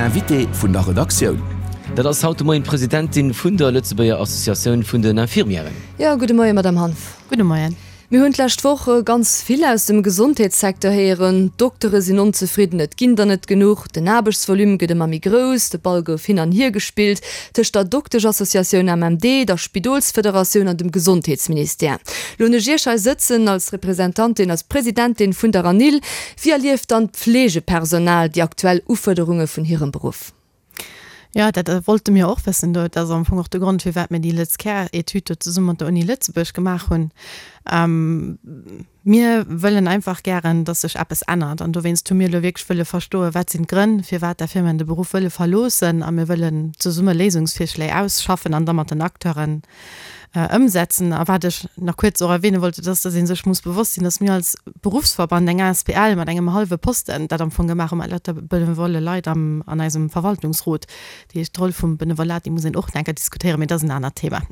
Invité vun der Redaktioun. Dat ass haut de Moien d'Presidentin vun der Lëtzebuerger Associatioun vun den Infirmièren. Jo, gudde Moien, Madamm Hanff. Gudde Moien. Mir hunn d'lescht Woch ganz vill aus dem Gesondheetssecteur héieren, D'Doktere sinn onzefridden, et ginn der net genuch, den Aarbechtsvolume gëtt ëmmer méi grouss, de Ball gouf hin an hier gespillt tëscht der Dokteschassociatioun MMD, der Spidolsfederatioun an dem Gesondheetsministère. Lo hunn ech Iech hei sëtzen als Representantin, als Presidentin vun der ANIL. Wéi erlieft dann d'Fleegepersonal déi aktuell Ufuerderunge vun hirem Beruff? Jo, dat wollte mir och wëssen. Dat ass am Fong och de Grond, firwat mir déi LëtzCare-Etüd do zesumme mat der Uni Lëtzebuerg gemaach hunn. Mir wëllen einfach gären, datt sech eppes ännert. An dowéinst hu mir elo wierklech wëlle verstoen, wat sinn d'Grënn, firwat d'Infirmieren de Beruff wëlle verloossen. A mir wëllen zesumme Léisungsvirschléi ausschaffen an da mat den Acteuren ëmsetzen. A wat ech nach kuerz och erwähne wollt, dat ass, dass ee sech muss bewosst sinn, dass mir als Beruffsverband, eng asbl mat engem hallwe Posten, dat am Fong gemaach hu mat lauter benevole Leit am, an eisem Verwaltungsrot. Dat heescht, d'Roll vum Benevolat, déi muss een och nach eng Kéier diskutéieren, mee dat ass en anert Thema.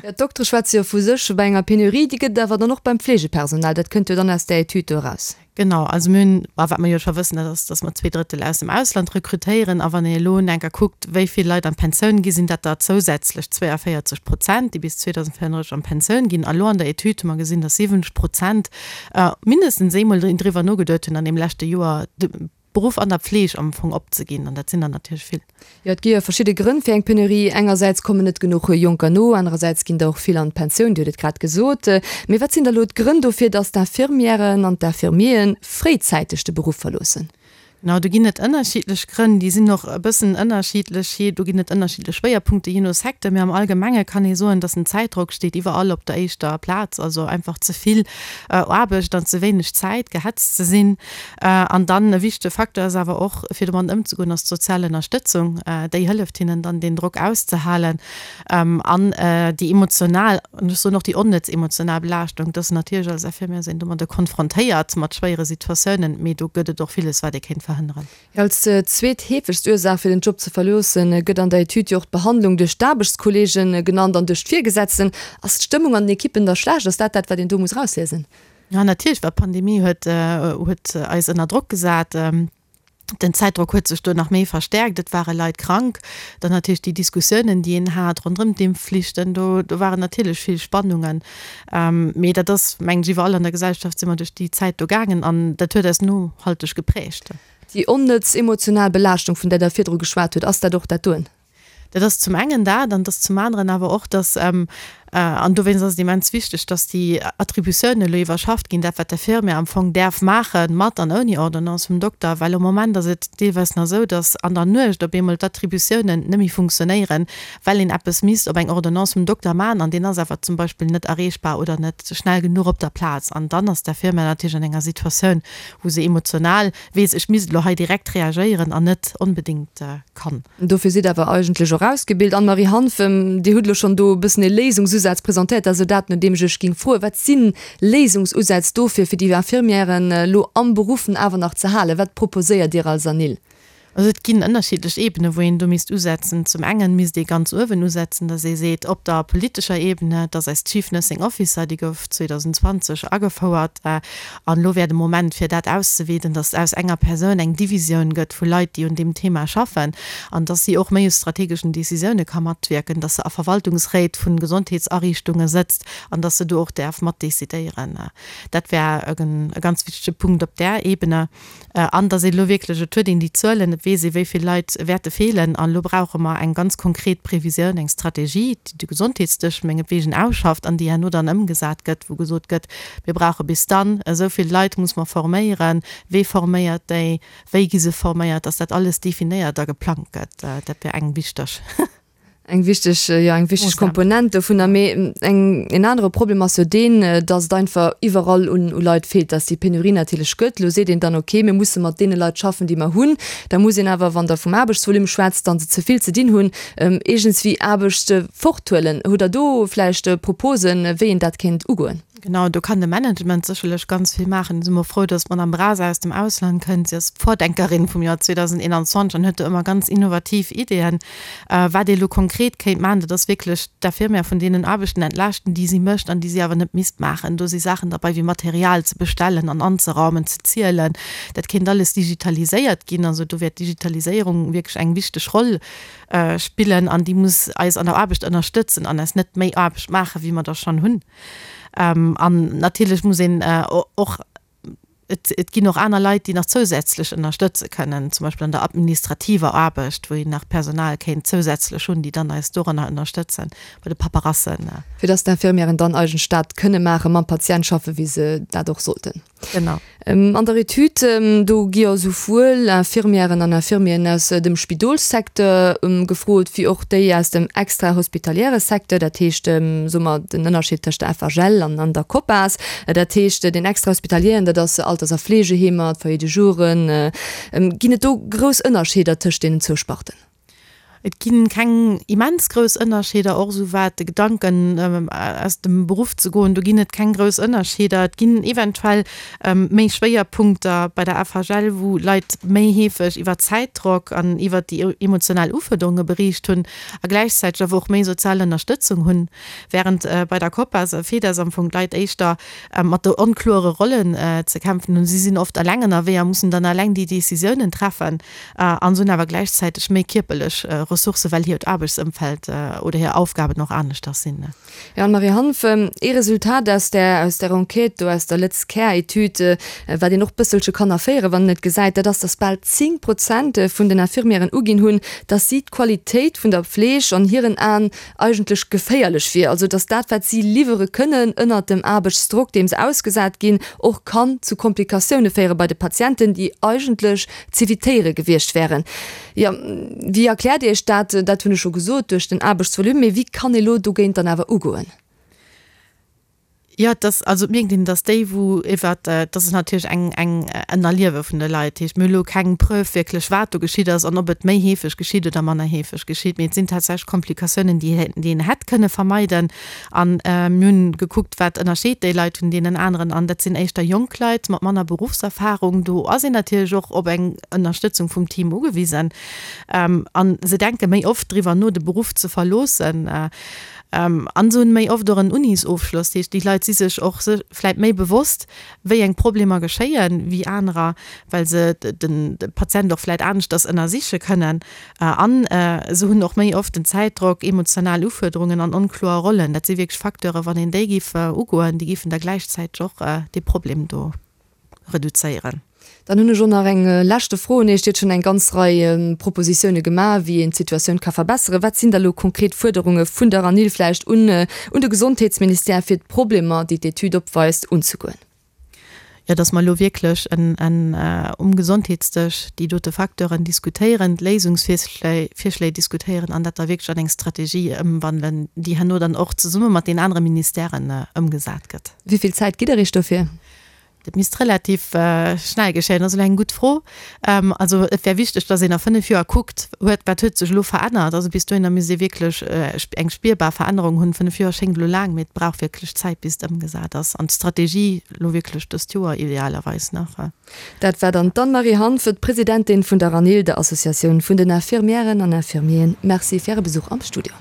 Jo, d'Doktere schwätze jo vu sech bei enger Penurie, déi gëtt et awer dann och beim Fleegepersonal. Dat kënnt jo dann aus där Etüd do eraus. Genau, also mir hunn, a wat mer jo scho wëssen, dat ass, datt mer zweedrëttel aus dem Ausland rekrutéieren. A wann een elo enker kuckt, wéi vill Leit an d'Pensioun gi sinn, dat der zousätzlech 42 Prozent, déi bis 2034 an d'Pensioun ginn. A lo an der Etüd hu mer gesinn, datt 70 Prozent mindestens eemol driwwer nogeduet hunn an deem leschte Joer, de Beruff an der Pfleg am Fong opzeginn. An dat sinn der natierlech vill. Jo, et gi jo verschidde Grënn fir eng Penurie. Engersäits kommen net genuch Jonker no, anerersäits ginn der och vill an d'Pensioun, Dir hutt et grad gesot. Mee wat sinn da elo d'Grënn dofir, datt d'Infirmièren an d'Infirmieren fréizäiteg de Beruff verloossen? Genau, do ginn et ënnerschiddlech Grënn. Déi sinn och e bëssen ënnerschiddlech, jee, do ginn et ënnerschiddlech Schwéierpunkte jee no Secteur. Mee am Allgemenge kann ee soen, datt den Zäitdrock steet iwwerall op der éischter Plaz, also einfach ze vill Aarbecht an ze wéineg Zäit, gehetzt ze sinn. An dann e wichtege Facteur ass awer och, fir domat ëmzegoen, ass d'sozial Ënnerstëtzung. Déi hëlleft hinnen dann, deen Drock auszehalen. An déi emotional, an ech soen och déi onnëtz emotional Belaaschtung, dass natierlech als Infirmière sinn domadder konfrontéiert mat schwéiere Situatiounen, mee do gëtt et och villes, wat ee kéint verhënneren. Als zweet heefegst Ursaach fir den Job ze verloossen, gëtt an der Etüd jo och d'Behandlung duerch d'Aarbechtskolleegen genannt an duerch d'Virgesetzten. Ass d'Stëmmung an den Ekippen da schlecht? Ass dat dat, wat een do muss erausliesen? Ja, natierlech, well d'Pandemie huet, huet eis ënner Drock gesat. Den Zäitdrock huet sech do nach méi verstärkt. Et ware Leit krank. Dann natierlech déi Diskussiounen, déi een hat ronderëm d'Impfflichten. Do, do waren natierlech vill Spannungen. Mee dat ass, mengen ech, iwwerall an der Gesellschaft si mer duerch déi Zäit do gaangen an dat huet eis nohalteg geprägt. Déi onnëtz emotional Belaaschtung, vun där Der virdru geschwat hutt, ass dat och dat doen? Dat ass zum engen dat, an et ass zum aneren awer och, dass, an dowéinst ass et immens wichteg, dass déi Attributiounen elo iwwerschafft ginn, dat wat d'Infirmière am Fong däerf maachen, mat an ouni Ordonnance vum Dokter, well am Moment ass et deelweis nach esou, dass an der Nuecht op eemol d'Attributiounen net méi funktionéieren, well een eppes misst op eng Ordonnance vum Dokter maachen an deen ass awer zum Beispill net erreechbar oder net schnell genuch op der Plaz. An dann ass d'Infirmière natierlech an enger Situatioun, wou se emotional weess, ech misst elo hei direkt reagéieren an net onbedéngt kann. Dofir sidd awer eigentlech och ausgebilt. Anne-Marie Hanff, Dir hutt elo schonn do e bëssen ee Léisungsusaz presentéiert. Dat ass elo dat, no deem ech Iech géing froen. Wat si Léisungsusätz dofir, fir déi Infirmièren elo am Beruff awer nach ze halen? Wat proposéiert Dir als ANIL? Also et ginn ënnerschiddlech Ebenen, wou een do misst usetzen. Zum engen misst ee ganz uewen usetzen, datt ee seet, op der politescher Ebene, datt eis Chief Nursing Officer, déi gouf 2020 agefouert, An elo wär de Moment, fir dat auszeweeden, dass aus enger Persoun eng Divisioun gëtt vu Leit, déi un deem Thema schaffen, an dass si och méi u strategeschen Décisioune ka matwierken, dass se a Verwaltungsréit vu Gesondheetsariichtunge sëtzt an dass se do och däerf matdecidéieren. Dat wär e ganz wichtege Punkt op där Ebene. An dass een elo wierklech, et huet een déi Zuelen, et weess ee wéi vill Leit wäerte feelen, an elo brauche mer eng ganz konkret Previsioun, eng Strategie, déi de Gesondheetsdësch mengetwegen ausschafft an déi herno dann ëmgesat gëtt, wou gesot gëtt, mir brauche bis dann esou vill Leit muss mer forméieren, wee forméiert déi, wéi gi se forméiert, dass dat alles definéiert a geplangt gëtt. Dat wär eng wichteg. Eng wichteg, jo, eng wichteg Komponent dovunner. Mee eng, en anere Problem ass jo deen, datt et einfach iwwerall un u Leit feelt, datt déi Penurie natierlech gëtt. Elo seet een dann, okay, mir musse mat deene Leit schaffen, déi mer hunn. Da muss een awer, wann Der vum Aarbechtsvolume schwätzt, dann se ze vill ze dinn hunn, iergendswéi Aarbecht forthuelen. Hutt Der do vläicht Proposen, wéi een dat kéint ugoen? Genau, do kann de Management sécherlech ganz vill maachen. Do si mer frou, dass d'Madame Brasa aus dem Ausland kënnt. Si ass d'Vordenkerin vum Joer 2021 an huet do ëmmer ganz innovativ Ideeën. Wat ee elo konkret kéint maachen, dat ass wierklech d'Infirmière vun deenen Aarbechten entlaaschten, déi si mécht an déi si awer net misst maachen. Do si Saachen derbei wéi Material ze bestellen an anzeraumen, ze zielen. Dat kéint alles digitaliséiert ginn. Also do wär d'Digitaliséierung wierklech eng wichteg Roll spillen an déi muss eis an der Aarbecht ënnerstëtzen an eis net méi Aarbecht maachen, wéi mer der schonn hunn. An natierlech muss een och, et ginn och aner Leit, déi nach zousätzlech ënnerstëtze kënnen, zum Beispill an der administrativer Aarbecht, wou een nach Personal kéint zousätzlech hunn, déi dann eis doranner ënnerstëtzen, bei de Paperassen. Fir dass d'Infirmièren dann eigentlech dat kënne maachen, mam Patient schaffen, wéi se dat och sollten. Genau. An der Etüd, do gi jo souwuel Infirmièren an Infirmieren aus dem Spidolssecteur gefrot, wéi och déi aus dem extrahospitaliere Secteur, dat heescht, soe mer, den Ënnerscheed tëscht der FHL an der COPAS. Dat heescht, deen extrahospitalieren, dat ass Alters a Fleegeheemer, d'Foyers de jouren. Ginn et do grouss Ënnerscheeder tëscht deenen zwou Sparten? Et gi keng immens grouss Ënnerscheeder, och esou wat de Gedanken aus dem Beruff ze goen, do ginn et keng grouss Ënnerscheeder. Et ginn eventuell méi Schwéierpunkter bei der FHL, wou Leit méi heefeg iwwer Zäitdrock an iwwer déi emotional Ufuerderunge beriicht hunn a gläichzäiteg awer och méi sozial Ënnerstëtzung hunn, wärend bei der COPAS a FEDES am Fong d'Leit éischter mat de onkloere Rollen ze kämpfen hunn. Si sinn oft eleng ënnerwee a mussen dann eleng déi Decisiounen treffen. An se hunn awer gläichzäiteg méi kierperlech Ressourcen, well hiert Aarbechtsëmfeld oder hir Aufgaben och aneschters sinn. Jo, Anne-Marie Hanff, ee Resultat aus där, aus där Enquête do, aus der Lëtz-Care-Etüd, wat een och bësselche kann erféieren, wann een et gesäit, dat ass, datt bal 10 Prozent vun den Infirmièren uginn hunn, datt si d'Qualitéit vun der Pfleg an hiren Aen eigentlech geféierlech wier, also datt dat, wat si liwwere kënnen ënnert dem Aarbechtsdrock, deem se ausgesat ginn, och kann zu Komplikatioune féiere bei de Patienten, déi eigentlech z'evitéiere gewiescht wären. Jo, wéi erkläert Dir Iech dat? Dat hunn ech scho gesot, duerch den Aarbechtsvolume. Mee wéi kann ee lo dogéint dann awer ugoen? Jo, et ass, also et mierkt een, datt déi, wou iwwer, dat ass natierlech eng, eng en Erliewe vun de Leit, dat heescht, mir hu lo keng Preuve wierklech, wat do geschitt ass an ob et méi heefeg geschitt oder manner heefeg geschitt, mee et sinn tatsächlech Komplikatiounen, déi, déi een hätt kënne vermeiden. An mir hunn gekuckt, wat ënnerscheet déi Leit vun deenen aneren. An dat sinn éischter jonk Leit mat manner Beruffserfarung. Do ass een natierlech och op eng Ënnerstëtzung vum Team ugewisen. An se denke méi oft driwwer no, de Beruff ze verloossen. An se hunn méi oft och en Unisofschloss. Dat heescht, déi Leit si sech och vläit méi bewosst, wéi eng Problemer geschéien, wéi anerer, well se de Patient och vläit aneschters ënnersiche kënnen. An se hunn och méi oft den Zäitdrock, emotional Ufuerderungen an onkloer Rollen. Dat si wierklech Facteuren, wann een déi géif ugoen, déi géifen da gläichzäiteg och dee Problem do reduzéieren. Dann hunn ech och nach eng leschte Fro un Iech. Dir hutt schonn eng ganz Rei Propositioune gemaach, wéi een d'Situatioun ka verbesseren. Wat sinn da lo konkret Fuerderunge vun der ANIL vläicht un un de Gesondheetsministère, fir d'Problemer, déi d'Etüd opweist, unzegoen? Jo, dass mer elo wierklech en um Gesondheetsdësch déi dote Facteuren diskutéieren, d'Léisungsvirschléi Virschléi diskutéieren an dat da wierklech an eng Strategie ëmwandelen, déi herno dann och zesumme mat den anere Ministèren ëmgesat gëtt. Wéi vill Zäit gitt Der Iech dofir? Dat misst relativ schnell geschéien. Dat ass elo eng gutt Fro. Also et wär wichteg, dass een a 5 Joer kuckt, huet, wat huet sech elo verännert. Also bis dohinner misst ee wierklech eng spierbar Verännerung hunn. 5 Joer schéngt elo laang, mee et brauch wierklech Zäit, bis et ëmgesat ass. An d'Strategie elo wierklech dëst Joer idealerweis nach. Dat war dann d'Anne-Marie Hanff, d'Presidentin vun der ANIL, der Associatioun vun den Infirmièren an Infirmieren. Merci fir Äre Besuch am Studio.